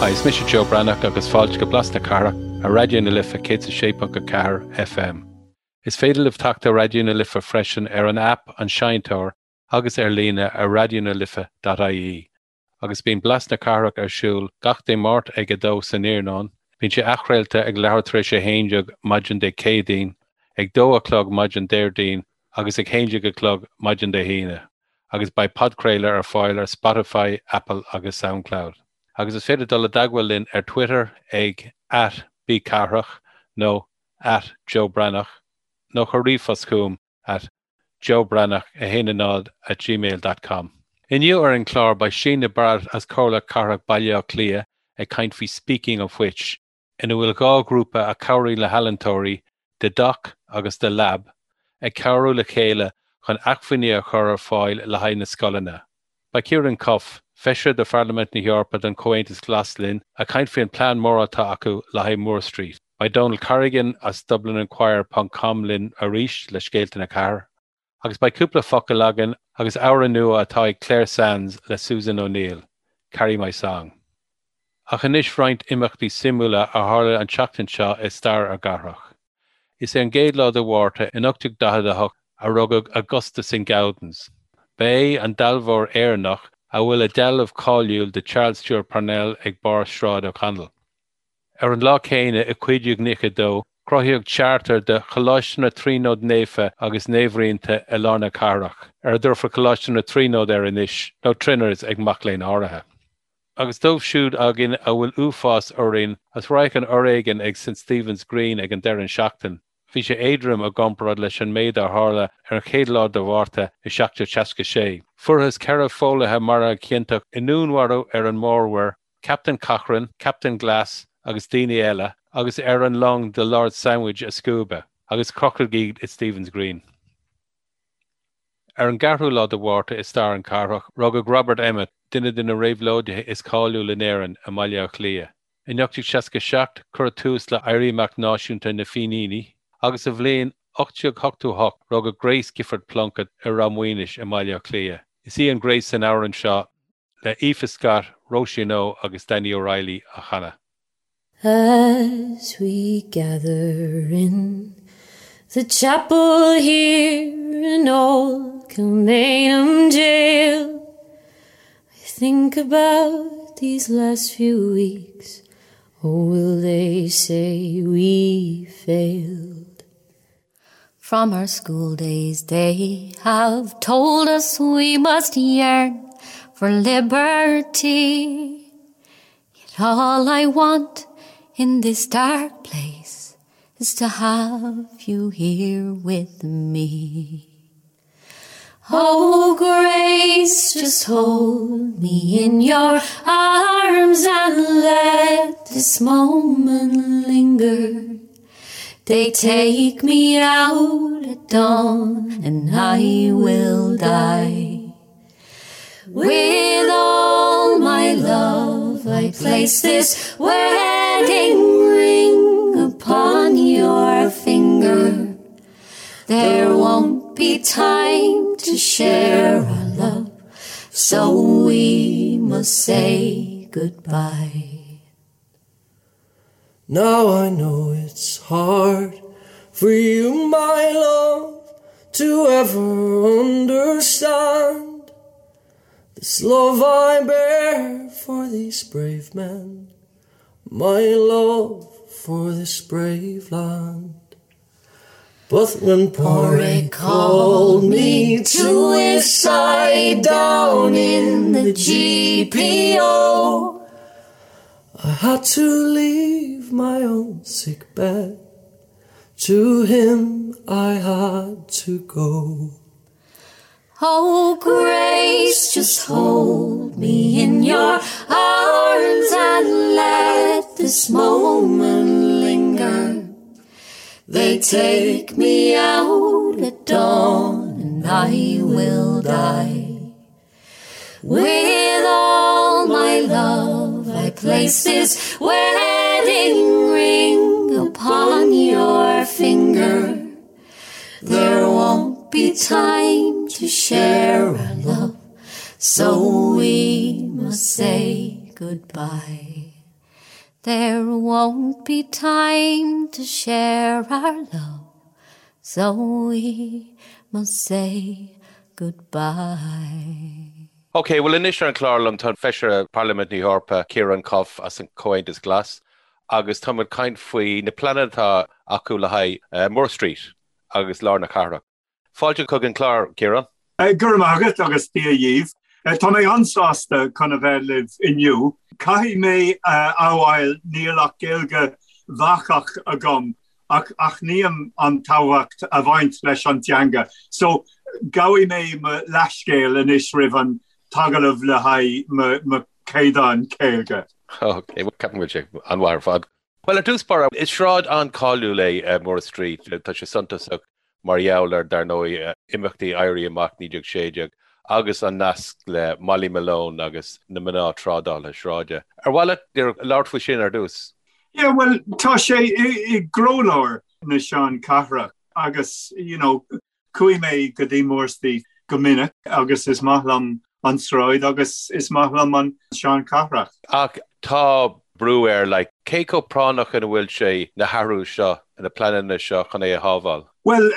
Hi, is mise Joe Breathnach agus fáilte go Blas na Cathrach ar Raidió na Life 106.4 FM. Is féidir libh teacht ar Raidió na Life freisin ar an aip An Seinnteoir agus ar líne ar raidionalife.ie. Agus bíonn Blas na Cathrach ar siúl gach Dé Máirt ag 2 san iarnóin, bíonn sé athchraolta ag leathuair tar éis 11 maidin Dé Céadaoin, ag 2 a chlog maidin Déardaoin agus ag 11 a chlog maidin Dé hAoine, agus beidh podchraoladh ar fáil ar Spotify, Apple agus Soundcloud. Agus is féidir dul i dteagmháil linn ar Twitter ag @BCathrach nó @JoeBreathnach nó cuir ríomhphost chugam at joebreathnach10 at gmail dot com. Inniu ar an chlár beidh Síne Barrett as Comhairle Cathrach Baile Átha Cliath ag caint faoi Speaking of Which, ina bhfuil 2 ghrúpa a chabhraíonn le healaíontóirí, The Dock agus The Lab, ag cabhrú le chéile chun acmhainní a chur ar fáil le haghaidh na scoileanna. Beidh Ciarán Cuffe, Feisire de Pharlaimint na hEorpa don Chomhaontas Glas linn ag caint faoin plean mór atá acu le haghaidh Moore Street. Beidh Donal Corrigan as DublinInquirer ponc com linn arís le scéalta na cathrach. Agus beidh cúpla focal againn agus amhrán nua atá ag Clare Sands le Susan O'Neill, Carry My Song. Ach anois roinnt imeachtaí suimiúla a tharla an tseachtain seo i stair ár gcathrach. Is ar an gcéad lá de Mhárta in 1848 a rugadh Augustus Saint-Gaudens. Ba é an dealbhóir Éireannach a bhfuil a dhealbh cáiliúil de Charles Stewart Parnell ag barr Sráid O'Connell. Ar an lá céanna i 1592, cruthaíodh charter de Choláiste na Tríonóide Naofa agus Naomhrianta i lár na cathrach, ar a dtabharfar Coláiste na Tríonóide air anois, nó Triners ag mac léinn áirithe. Agus dóibh siúd againn a bhfuil uafás orainn as radharc an fhoréigin ag St Stephen's Green ag an deireadh seachtain, bhí sé éadrom i gcomparáid leis an méid a tharla ar an chéad lá de Mhárta i 1766. Fuarthas 4 phóilithe maraithe ciontach i ndúnmharú ar an Mórmhuir, Captain Cochrane, Captain Glass agus daoine eile, agus ar an long The Lord Sandwich a scuabadh, agus crochadh iad i Stephen's Green. Ar an gceathrú lá de Mhárta i stair an chathrach, rugadh Robert Emmet, duine de na réabhlóidithe is cáiliúla in Éirinn, i mBaile Átha Cliath. In 1867, cuireadh tús le Éirí Amach Náisiúnta na bhFíníní, agus sa bhliain 1888, rugadh Grace Gifford Plunkett i Ráth Maoinis i mBaile Átha Cliath. Is í an Grace san amhrán seo le Aoife Scott, Róisín Ó agus Danny O'Reilly á chanadh. As we gather in the chapel here in old Kilmainham Jail, I think about these last few weeks, oh will they say we failed? From our school days they have told us we must yearn for liberty. Yet all I want in this dark place is to have you here with me. Oh grace, just hold me in your arms and let this moment linger. They take me out at dawn and I will die. With all my love I place this wedding ring upon your finger. There won't be time to share our love, so we must say goodbye. Now I know it's hard for you, my love, to ever understand this love I bear for these brave men, my love for this brave land. But when Porrick called me to his side down in the GPO, I had to leave my own sick bed. To him I had to go. Oh grace, just hold me in your arms and let this moment linger. They take me out at dawn and I will die. With all my love I place this wedding ring upon your finger. There won't be time to share our love, so we must say goodbye. There won't be time to share our love, so we must say goodbye. Ok, bhuel anois ar an chlár liom tá an Feisire Parlaimint na hEorpa, Ciarán Cuffe as an Comhaontas Glas agus táimid ag caint faoi na pleananna atá acu le haghaidh Moore Street agus lár na cathrach. Fáilte chuig an chlár, Ciarán. Go raibh maith agat agus Dia dhaoibh. Tá mé an-sásta chun a bheith libh inniu. Caithfidh mé a admháil níl ach Gaeilge bhacach agam ach aithním an tábhacht a bhaint leis an teanga so gabhfaidh mé mo leathscéal anois roimh an t-agallamh le haghaidh mo chaighdeán Gaeilge. Ok, bhuel ceapaim go bhfuil sé an-mhaith ar fad. Bhuel, ar dtús báire, is sráid an-cháiliúil é Moore Street. Tá sé suntasach mar gheall ar, dar ndóigh, imeachtaí Éirí Amach 1916 agus an nasc le Molly Malone agus na mná trádálaithe sráide. Ar mhaith leat labhairt faoi sin ar dtús? Yeah, bhuel, tá sé i gcroílár na seanchathrach agus, you know, Chuaigh mé go dtí Moore Street go minic agus is maith liom an tsráid agus is maith liom an seanchathrach. Ach tá brú air, like, cé chomh práinneach ina bhfuil sé na hathrú seo, na pleananna seo chun é a shábháil? Bhuel,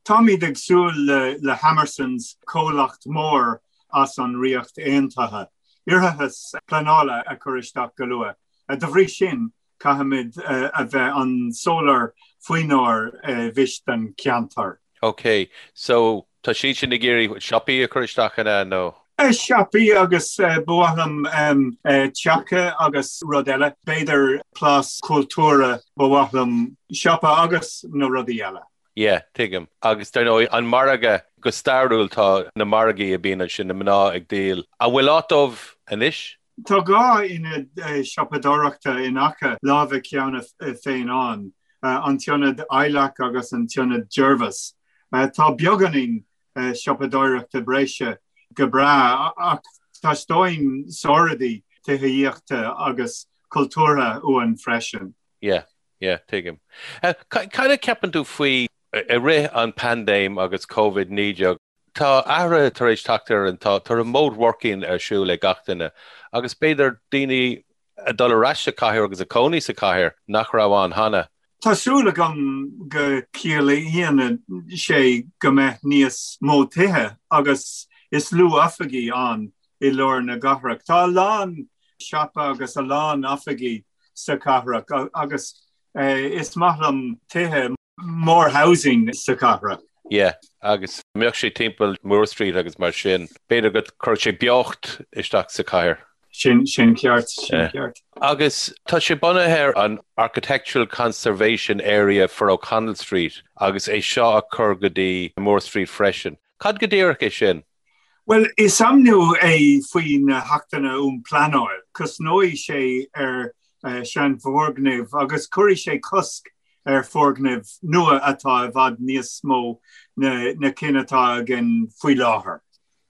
táimid ag súil le Hammersons, comhlacht mór as an Ríocht Aontaithe, iarratas pleanála a chur isteach go luath. De bhrí sin, Caithfimid a bheith an-soiléir faoinár bhfís don cheantar. Ok, so tá siad sin ag iarraidh siopaí a chur isteach an ea nó? Siopaí agus ba mhaith liom teacha agus rud eile, b'fhéidir plás cultúrtha, ba mhaith liom siopa agus na rudaí eile. Yeah, tuigim. Agus dar ndóigh, an margadh, go stairiúil tá na margaí a bhíonn ansin, na mná ag díol. An bhfuil áit dóibh anois? Tá 2 ionad siopadóireachta in aice láimhe cheana féin ann, an tIonad Ilac agus an tIonad Jervis. Tá beagáinín siopadóireachta breise go breá ach teastaíonn saoráidí tithíochta agus cultúrtha uainn freisin. Yeah, yeah, tuigim. Cad a cheapann tú faoi i rith an paindéim agus Covid-19, Tá athruithe tar éis teacht ar an, tá remote working ar siúl ag gach duine agus b'fhéidir daoine ag dul ar ais sa chathair agus ag cónaí sa chathair nach raibh ann cheana. Tá súil agam go ciallaíonn sé go mbeidh níos mó tithe agus is lú oifigí ann i lár na gcathrach. Tá a lán siopa agus a lán oifigí sa chathrach agus is maith liom tithe. More housing sa chathrach. Yeah, agus mbeadh sé timpeall Moore Street agus mar sin, b'fhéidir go gcuirfeadh sé beocht isteach sa chathair. Sin, sin ceart, sin ceart. Agus tá sé bunaithe ar an Architectural Conservation Area for O'Connell Street agus é seo a chur go dtí Moore Street freisin. Cad go díreach é sin? Bhuel, is ainmniú é faoi na hAchtanna um Pleanáil. Cosnóidh sé ar seanfhoirgnimh agus cuirfidh sé cosc ar foirgnimh nua atá i bhfad níos mó na cinn atá againn faoi láthair.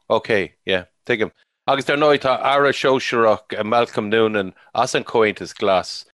Ok, yeah, tuigim. Agus dar ndóigh tá Aire Sóisearach Malcolm Noonan as an Chomhaontas Glas.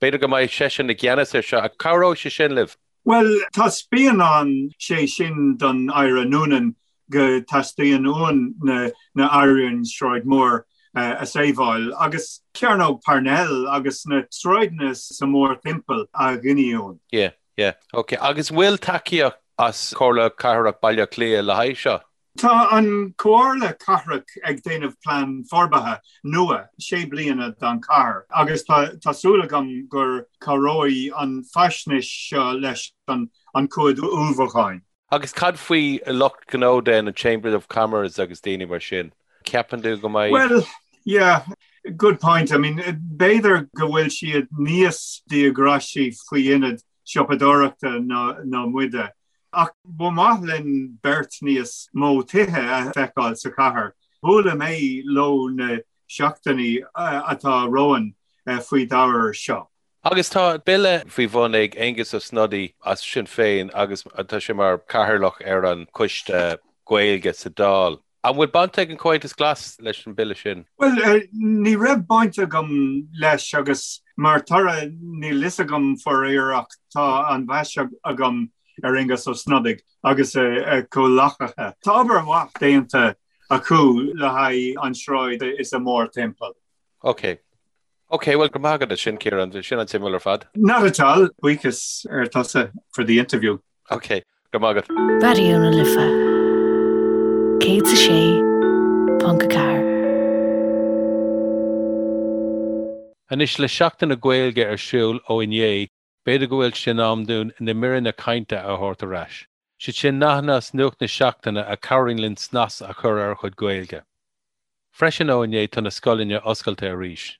B'fhéidir go mbeidh seisean i gceannas air seo. Cabhróidh sé sin libh? Bhuel, taispeánann sé sin don Aire Noonan go dteastaíonn uainn na hAiríonna Sráid Moore a sábháil agus Cearnóg Parnell agus na sráideanna sa mórthimpeall a ghiniúint. Yeah, yeah. Ok. Agus bhfuil tacaíocht as Comhairle Cathrach Baile Átha Cliath le haghaidh seo? Tá an Comhairle Cathrach ag déanamh plean forbartha nua sé bliana don chathair agus tá súil agam gur cabhróidh an faisnéis seo leis an chuid ullmhúcháin. Agus cad faoi lucht gnó den, an Chamber of Commerce agus daoine mar sin? Ceapann tú go mbeidh. Well, yeah, good point. I mean, b'fhéidir go bhfuil siad níos díograisí faoi ionad siopadóireachta ná muide. Ach ba mhaith linn beirt níos mó tithe a feiceáil sa chathair. Buailfidh mé leo na seachtainí atá romhainn faoi d'ábhar seo. Agus tá bille faoi bhun ag Aengus Ó Snodaigh as Sinn Féin agus tá sé mar chathaoirleach ar an Choiste Gaeilge sa Dáil. An bhfuil baint ag an Chomhaontas Glas leis an bille sin? Bhuel, ní raibh baint agam leis agus mar toradh níl fhios agam faraor ach tá an-mheas agam ar Aengus Ó Snodaigh agus a chomhleacaithe. Tá obair mhaith déanta acu le haghaidh an sráid is a mórthimpeall. Ok. Ok, bhuel go raibh maith agat as sin, Ciarán, bhí sin an-suimiúil ar fad. Not at all, buíochas ar tusa for the interview. Ok, go raibh maith agat. Raidió na Life 106.4. Anois, le Seachtain na Gaeilge ar siúl ó inné, b'fhéidir go bhfuil sé in am dúinn na míreanna cainte a thabhairt ar ais. Siad sin nathanna as nuacht na seachtaine a chabhraíonn linn snas a chur ar ár gcuid Gaeilge. Freisin ó inné tá na scoileanna oscailte arís,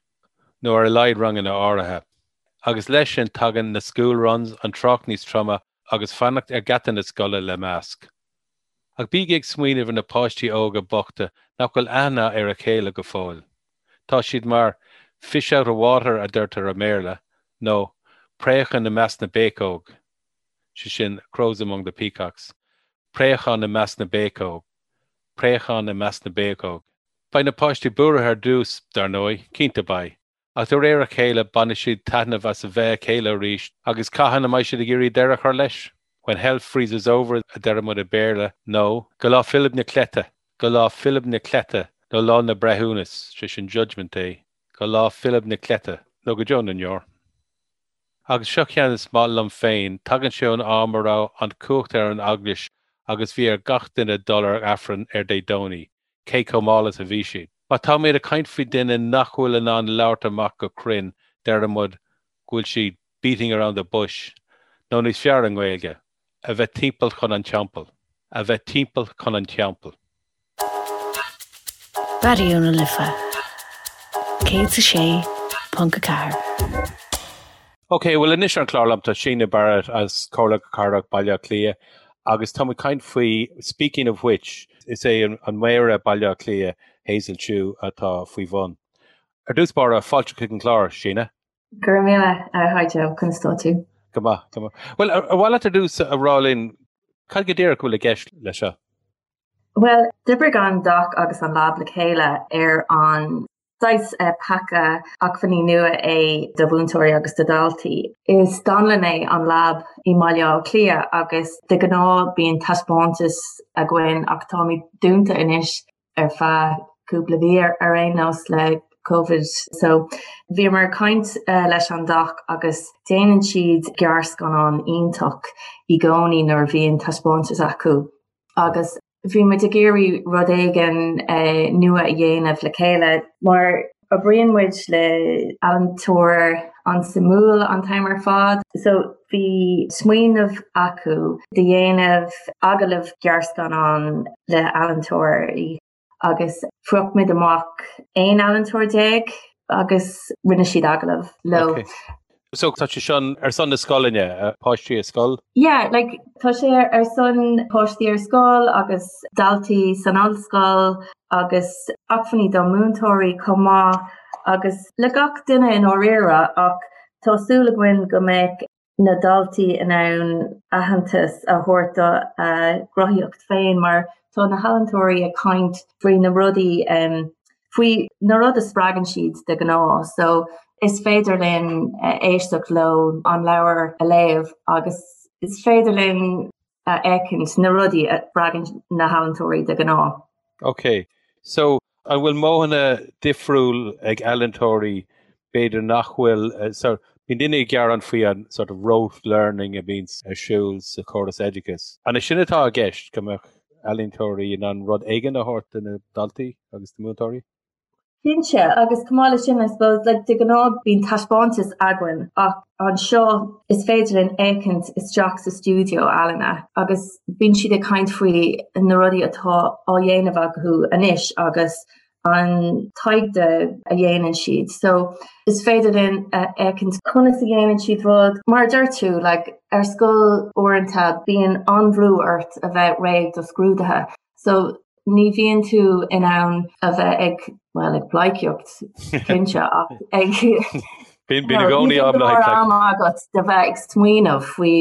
nó ar a laghad ranganna áirithe. Agus leis sin tagann na school runs, an trácht níos troime agus fanacht ar gheata na scoile le masc. Ach bígí ag smaoineamh ar na páistí óga bochta nach bhfuil aithne ar a chéile go fóill. Tá siad mar fish out of water a deirtear i mBéarla, nó préachán i measc na bpéacóg. sé sin crows among the peacocks, préachán i measc na bpéacóg, préachán i measc na bpéacóg. Beidh na páistí buartha ar dtús, dar ndóigh, cinnte beidh, ach de réir a chéile bainfidh siad taitneamh as a bheith a chéile arís agus cathain a mbeidh siad ag iarraidh deireadh a chur leis? When hell freezes over a deir muid i Béarla, nó go lá Philib na Cleite, go lá Philib na Cleite, nó lá na breithiúnas, sé sin judgment day, go lá Philib na Cleite, nó go deo na ndeor. Agus seo ceann is maith liom féin, tagann sé ón am a raibh an chumhacht ar an Eaglais agus bhí ar gach duine dul ar Aifreann ar Dé Domhnaigh, cé chomh mall is a bhí siad. Má táimid ag caint faoi duine nach bhfuil in ann labhairt amach go cruinn, deir muid go bhfuil siad beating around the bush, nó níos fearr i nGaeilge, a bheith timpeall chun an teampaill. A bheith timpeall chun an teampaill. Raidió na Life 106.4. Ok, bhuel anois ar an chlár liom tá Síne Barrett as Comhairle Cathrach Baile Átha Cliath agus tá muid ag caint faoi Speaking of Which, is é an Méara Baile Átha Cliath, Hazel Chu, atá faoi bhun. Ar dtús báire, fáilte chuig an chlár, Síne. Go raibh míle, hi Joe, conas tá tú? Go maith, go maith. Bhuel, ar mhaith leat ar dtús a rá linn cad go díreach a bhfuil i gceist leis seo? Bhuel, d'oibrigh an doc agus an Lab le chéile ar an saghas paca acmhainní nua é do mhúinteoirí agus do dhaltaí. Is dánlann é an Lab i mBaile Átha Cliath agus de ghnáth bíonn taispeántas againn ach táimid dúnta anois ar feadh cúpla mhí ar aon nós le Covid. So bhíomar ag caint leis an doc agus déanann siad gearrscannán iontach i gcónaí nuair a bhíonn taispeántas acu. agus bhí muid ag iarraidh rud éigin nua a dhéanamh le chéile mar oibríonn muid le ealaíontóir an-suimiúil an t-am ar fad. So bhí smaoineamh acu de dhéanamh agallamh gearrscannán le ealaíontóirí. agus phrioc muid amach 11 ealaíontóir agus rinne siad agallamh leo. Okay. So tá sé seo ar son na scoileanna, páistí ar scoil? Yeah, like tá sé ar son páistí ar scoil agus daltaí san ollscoil agus acmhainní do múinteoirí chomh maith agus le gach duine i ndáiríre ach tá súil againn go mbeidh na daltaí in ann aitheantas a thabhairt do a gcruthaíocht féin mar tá na healaíontóirí ag caint faoi na rudaí faoi na rud a spreagann siad de ghnáth so is féidir linn éisteacht leo an leabhar a léamh agus is féidir linn a fheicint na rudaí a spreagann na healaíontóirí de ghnáth. Ok, so an bhfuil modhanna difriúil ag ealaíontóirí b'fhéidir nach bhfuil, so bíonn daoine ag gearán faoi an sort of rote learning a bhíonn ar siúl sa chóras oideachais. An é sin atá i gceist, go mbeadh ealaíontóirí in ann rud éigin a thabhairt do na daltaí agus do múinteoirí? Cinnte, agus chomh maith leis sin, I suppose, like, de ghnáth bíonn taispeántas againn ach anseo is féidir linn féachaint isteach sa stiúideo ealaíne agus bíonn siad ag caint faoi na rudaí atá á dhéanamh acu anois agus an taighde a dhéanann siad. So is féidir linn a fheicint conas a dhéanann siad rud. Mar a deir tú, like, ar scoil uaireanta bíonn an-bhrú ort a bheith réidh do scrúduithe. So ní bhíonn tú in ann a bheith ag, bhuel, ag pleidhcíocht, cinnte, ach ag Bíonn i gcónaí am le haghaidh am agat de bheith ag smaoineamh faoi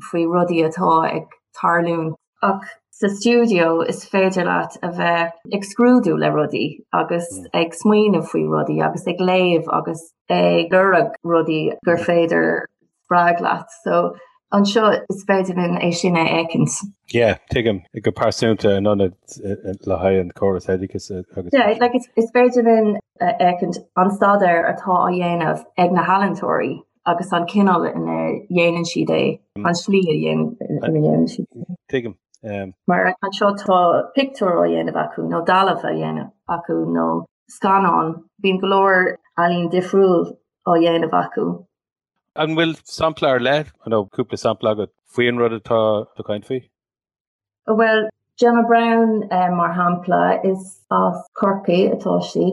faoi rudaí atá ag tarlúint. Ach sa stiúideo is féidir leat a bheith ag scrúdú le rudaí agus ag smaoineamh faoi rudaí agus ag léamh agus ag lorg rudaí gur féidir spreag leat. So. Anseo is féidir linn é sin a fheicint. Yeah, tuigim, go pearsanta in ionad le haghaidh an córas oideachais agus. Yeah, like is féidir linn a fheicint an staidéar atá á dhéanamh ag na healaíontóirí agus an cineál ina dhéanann siad é, an slí ina dhéanann siad é. Tuigim. Mar anseo tá pictiúr á dhéanamh acu nó dealbh á dhéanamh acu nó scannán, bíonn go leor ealaín difriúil á dhéanamh acu. An bhfuil sampla ar leith nó cúpla sampla agat faoin rud atá tú ag caint faoi? Bhuel, Gemma Browne mar shampla, is as Corcaigh atá sí.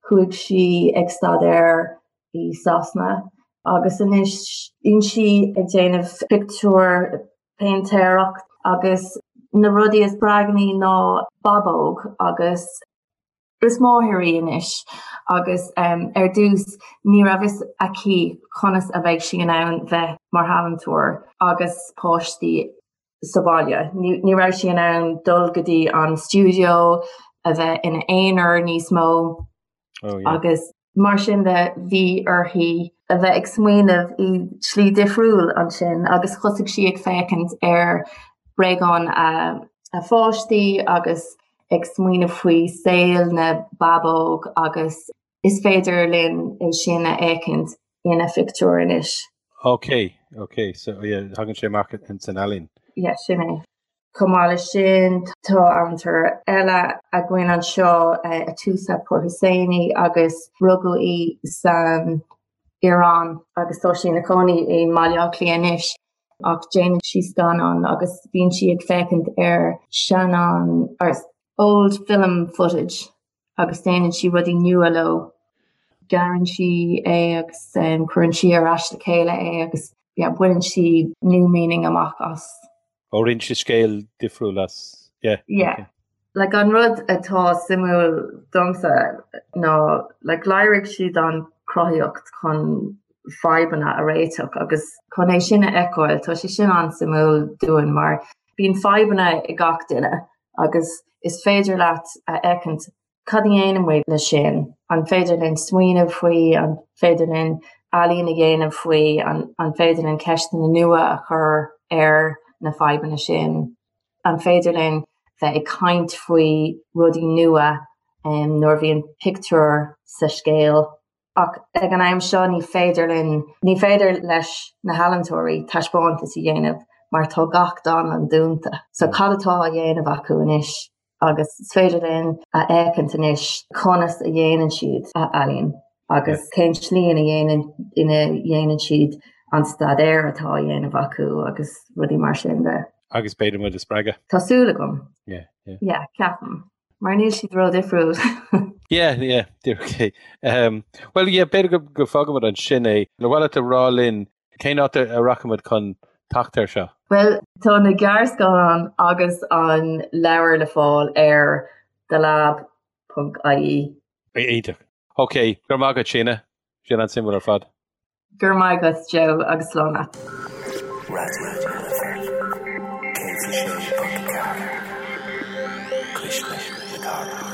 Chuaigh sí ag staidéar i Sasana agus anois bíonn sí ag déanamh pictiúr, péintéireacht agus na rudaí a spreagann í ná bábóg agus Is máthair í anois agus ar dtús ní raibh fhios aici conas a bheidh sí in ann bheith mar ealaíontóir agus páistí sa bhaile. Ní raibh sí in ann dul go dtí an stiúideo, a bheith ina aonar níos mó agus mar sin de bhí uirthi a bheith ag smaoineamh i slí difriúil ansin agus thosaigh sí ag féachaint ar bréagáin a pháistí agus ag smaoineamh faoi saol na bábóg agus is féidir linn é sin a fheicint ina phictiúr anois. Ok, ok, so yeah, thagann sé amach in san ealaín. Yeah, sin é. Chomh maith leis sin, tá ealaíontóir eile againn anseo, Atoosa Pourhosseini, agus rugadh í san Iaráin agus tá sí ina cónaí i mBaile Átha Cliath anois. Ach déanann sí scannáin agus bíonn sí ag féachaint ar scannáin, or old film footage agus déanann sí rudaí nua leo. Gearrann sí é agus cuireann sí ar ais le chéile é agus yeah, baineann sí new meaning amach as. Ó rinne sí scéal difriúil as, yeah. Yeah. Okay. Like an rud atá suimiúil domsa ná like léirigh siad an chruthaíocht chun fadhbanna a réiteach agus chun é sin a fheiceáil tá sé sin an-suimiúil dúinn mar bíonn fadhbanna ag gach duine agus is féidir leat a fheicint cad a dhéanann muid leis sin, an féidir linn smaoineamh faoi, an féidir linn ealaín a dhéanamh faoi, an, an féidir linn ceisteanna nua a chur ar na fadhbanna sin, an féidir linn bheith ag caint faoi rudaí nua um, nuair a bhíonn pictiúr sa scéal. Ach ag an am seo ní féidir linn, ní féidir leis na healaíontóirí taispeántas a dhéanamh mar tá gach dánlann dúnta. So cad atá á dhéanamh acu anois? Agus is féidir linn a fheicint anois conas a dhéanann siad a ealaín agus cén slí ina dhéanann ina dhéanann siad an staidéar atá á dhéanamh acu agus rudaí mar sin de. Agus b'fhéidir muid a spreagadh. Tá súil agam. Yeah, yeah. Yeah, ceapaim. Mar níl siad ró-difriúil. Yeah, yeah, okay. Um, well, yeah, b'fhéidir go, go bhfágfaimid ansin é. Ar mhaith leat a rá linn cén áit a rachaimid chun teacht air seo? Bhuel, tá na gearrscannáin agus an leabhar le fáil ar thelab.ie. Iontach. Ok, go raibh maith agat, Síona. Sin an-suimiúil ar fad. Go raibh maith agat, Joe, agus slán leat. Raidió na Life 106.4 Cuisle na Cathrach.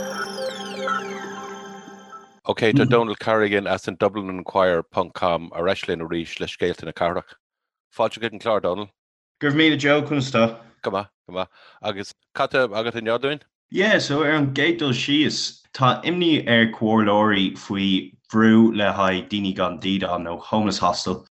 Ok, tá Donal Carrigan as an DublinInquirer ponc com ar ais linn arís le scéalta na cathrach. Fáilte chuig an chlár, Donal. Go raibh míle Joe, conas tá? Go maith, go maith. Agus cad tá agat inniu dúinn? Yeah, so ar an gcéad dul síos, tá imní ar comhairleoirí faoi bhrú le haghaidh daoine gan dídean nó homeless hostel.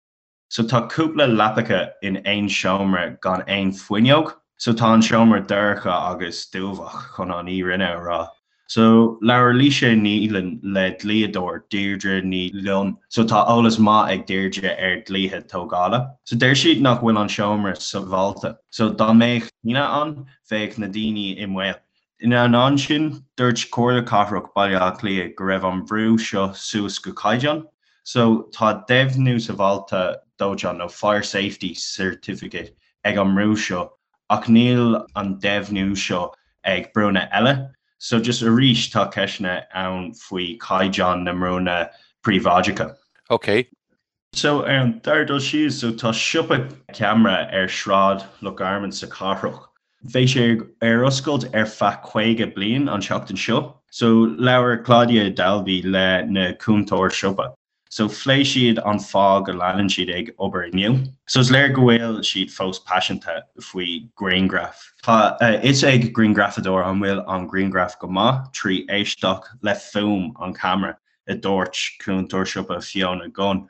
So tá cúpla leapacha in aon seomra gan aon fuinneog, so tá an seomra dorcha agus dúbhach chun an fhírinne a rá. So, labhair Laoise Neylon le dlíodóir, Deirdre Ní Fhloinn. So, tá eolas maith ag Deirdre ar dhlíthe tógála. So, deir siad nach bhfuil an seomra sábháilte. So, dá mbeadh tine ann, bheadh na daoine i mbaol. Ina ainneoin sin, dúirt Comhairle Cathrach Baile Átha Cliath go raibh an brú seo suas go caighdeán. So, tá deimhniú sábháilte dóiteáin nó fire safety certificate ag an mbrú seo ach níl an deimhniú seo ag brúnna eile. So just arís tá ceisteanna ann faoi chaighdeán na mbrúnna príobháideacha. Ok. So ar an dara dul síos, so tá siopa ceamara ar Shráid Loch Garman sa chathrach. Bheidh sé ar oscailt ar feadh 50 bliain an tseachtain seo. So labhair Claudia Dalby le na cúntóir siopa. So phléigh siad an fáth go leanann siad ag obair inniu. So is léir go bhfuil siad fós paiseanta faoi ghrianghraif. Tá a fhios ag grianghrafadóir an bhfuil an grianghraf go maith trí éisteacht le fuaim an cheamara, a dúirt cúntóir siopa Fiona Gunn.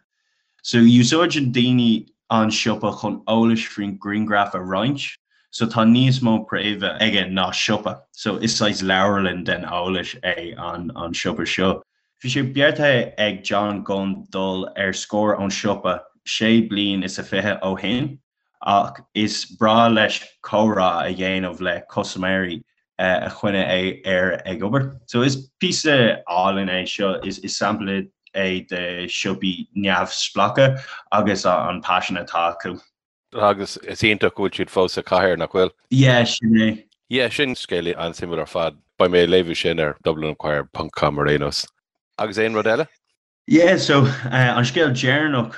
So úsáideann daoine an siopa chun eolais faoin ghrianghraf a roinnt. So tá níos mó préimhe aige ná siopa. So is saghas leabharlann den eolais é an an siopa seo. Bhí sé beartaithe ag John Gunn dul ar scor ón siopa sé bliain is a 20 ó shin ach is breá leis comhrá a dhéanamh le custaiméirí a choinnigh air ag obair. So is píosa álainn é seo, is sampla é de siopaí neamhspleácha agus an paisean atá acu. Agus is iontach go bhfuil siad fós sa chathair, nach bhfuil? Yeah, sin é. Yeah, sin scéal an-suimiúil ar fad. Beidh mé ag léamh sin ar dublininquirer ponc com ar aon nós. Agus aon rud eile? Yeah, so an scéal deireanach,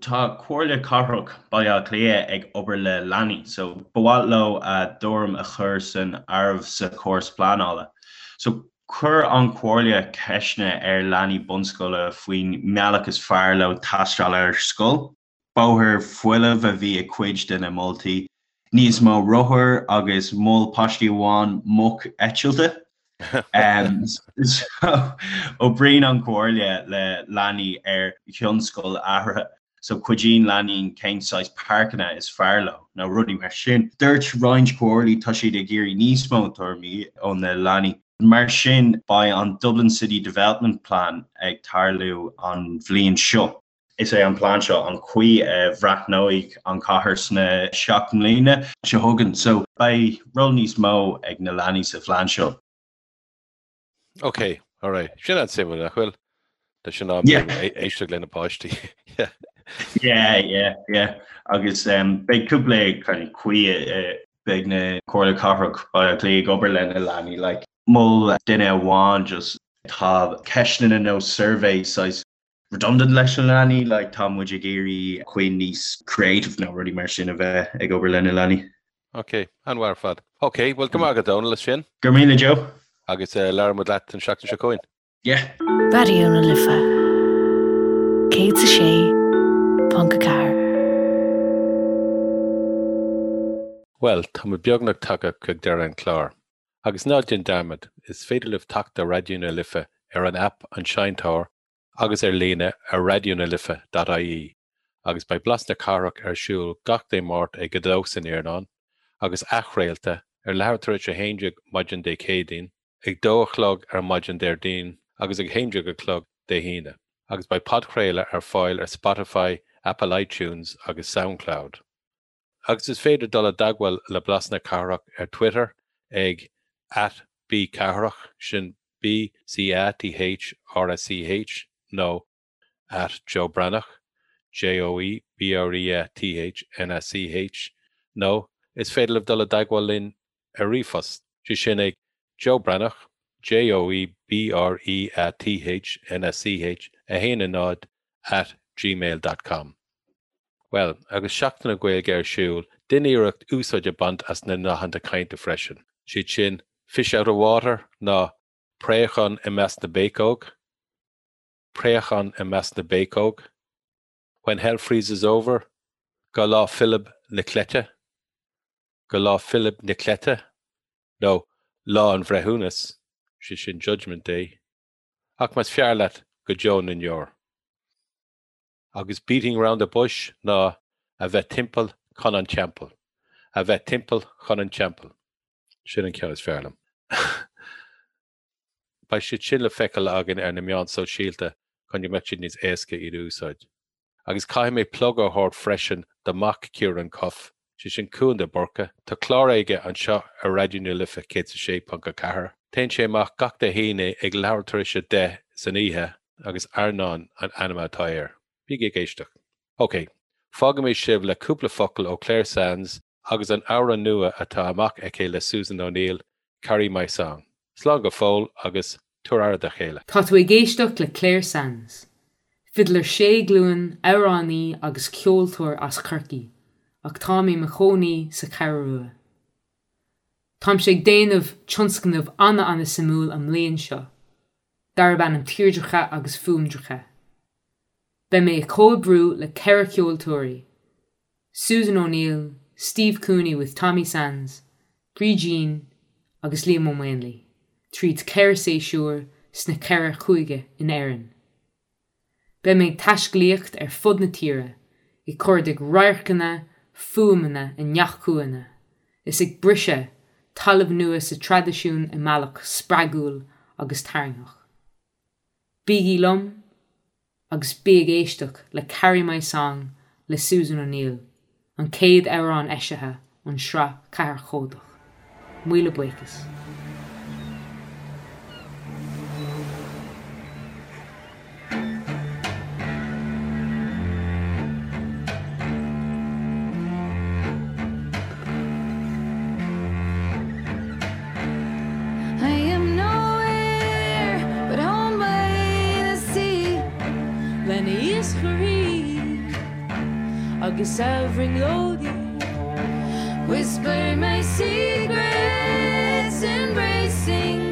tá Comhairle Cathrach Baile Átha Cliath ag obair le leanaí, so ba mhaith leo a dtuairim a chur san áireamh sa chóras pleanála. So chuir an Chomhairle ceisteanna ar leanaí bunscoile faoin mbealach is fearr leo taisteal ar scoil. Bóthar folamh a bhí i cuid de na moltaí, níos mó rothar agus mhol páistí amháin muc eitilte. Oibríonn an Chomhairle le leanaí ar thionscadail athraithe, so cuidíonn leanaí cén saghas páirceanna is fearr leo nó rudaí mar sin. Dúirt roinnt comhairlí tá siad ag iarraidh níos mó tuairimí ó na leanaí. Mar sin beidh an Dublin City Development Plan ag tarlú an bhliain seo. Is é an plean seo an chaoi a bhreathnóidh an chathair sna 7 mbliana seo chugainn. So beidh ról níos mó ag na leanaí sa phlean seo. Ok, alright. Sin an-suimiúil, nach bhfuil? Tá sin am yeah. éisteacht le na páistí. yeah. Yeah, yeah, yeah. Agus um, beidh cúpla kind of caoi uh, beidh na Comhairle Cathrach Baile Átha Cliath ag obair le na leanaí like mhol duine amháin just tá ceisteanna nó survey saghas redundant leis na leanaí, like tá muid ag iarraidh caoi níos creative nó rudaí mar sin a bheith ag obair le na leanaí. Ok, an-mhaith ar fad. Ok, bhuel go maith agat Dónal as sin. Go raibh míle Joe. Agus uh, labhróidh muid leat an seachtain seo chugainn. Yeah. Raidió na Life 106.4. Bhuel, tá muid beagnach tagtha chuig deireadh an chláir. Agus ná déan dearmad, is féidir libh teacht ar Raidió na Life ar an aip An Seinnteoir agus ar líne ar raidionalife.ie agus beidh Blas na Cathrach ar siúl gach Dé Máirt ag 2 san iarnóin agus athchraolta ar leathuair tar éis 11 maidin Dé Céadaoin, ag 2 a chlog ar maidin Déardaoin agus ag 11 a chlog Dé hAoine. Agus beidh podchraoladh ar fáil ar Spotify, Apple iTunes agus Soundcloud. Agus is féidir dul i dteagmháil le Blas na Cathrach ar Twitter ag at bcathrach, sin B-C-A-T-H-R-A-C-H, nó at Joe Breathnach, J-O-E-B-R-E-A-T-H-N-A-C-H, nó is féidir libh dul i dteagmháil linn ar ríomhphost, sé sin ag Joe Breathnach, J-O-E-B-R-E-A-T-H-N-A-C-H, 1 0 at gmail dot com. Bhuel, agus Seachtain na Gaeilge ar siúl, déan iarracht úsáid a bhaint as na nathanna cainte freisin. Siad sin, fish out of water ná préachán i measc na bpéacóg, préachán i measc na bpéacóg, when hell freezes over, go Lá Philib na Cleite, go Lá Philib na Cleite, nó Lá an Bhreithiúnais, sé sin Judgment Day, ach más fearr leat, go deo na ndeor. Agus beating round the bush ná a bheith timpeall chun an teampaill. A bheith timpeall chun an teampaill. Sin an ceann is fearr liom. Beidh siad sin le feiceáil againn ar na meáin sóisialta chun go mbeadh siad níos éasca iad a úsáid. Agus caithfidh mé plug a thabhairt freisin do mhac Ciarán Cuffe, sé sin Cuan de Búrca. Tá clár aige anseo ar Raidió na Life 106.4. Téann sé amach gach Dé hAoine ag leathuair tar éis 10 san oíche agus Airneán an ainm atá air. Bígí ag éisteacht. Ok, fágfaidh mé sibh le cúpla focal ó Clare Sands agus an amhrán nua atá amach aici le Susan O'Neill, Carry My Song. Slán go fóill agus tabhair aire do chéile. Tá tú ag éisteacht le Clare Sands, fidléir sé glúin, amhránaí agus ceoltóir as Corcaigh, ach táim i mo chónaí sa Cheathrú Rua. Táimse ag déanamh tionscnamh ana-ana-suimiúil an mbliain seo, darb ainm Tírdreacha agus Fuaimdreacha. Beidh mé ag comhoibriú le 4 ceoltóirí, Susan O'Neill, Steve Cooney with Tommy Sands, Brídín agus Liam Ó Maonlaí, tríd 4 séasúr sna 4 chúige in Éirinn. Beidh mé ag taiscéalaíocht ar fud na tíre, ag cuardaigh radharcanna, fuaimeanna i ngach cúinne, is ag briseadh talamh nua sa traidisiún i mbealach spreagúil agus tarraingtheach. Bígí liom agus bí ag éisteacht le Carry My Song le Susan O'Neill, an chéad amhrán eisithe ón sraith ceathairchódach. Míle buíochas. I am nowhere but home by the sea Le na hiascairí agus a bhrionglóidí Whisper my secrets embracing.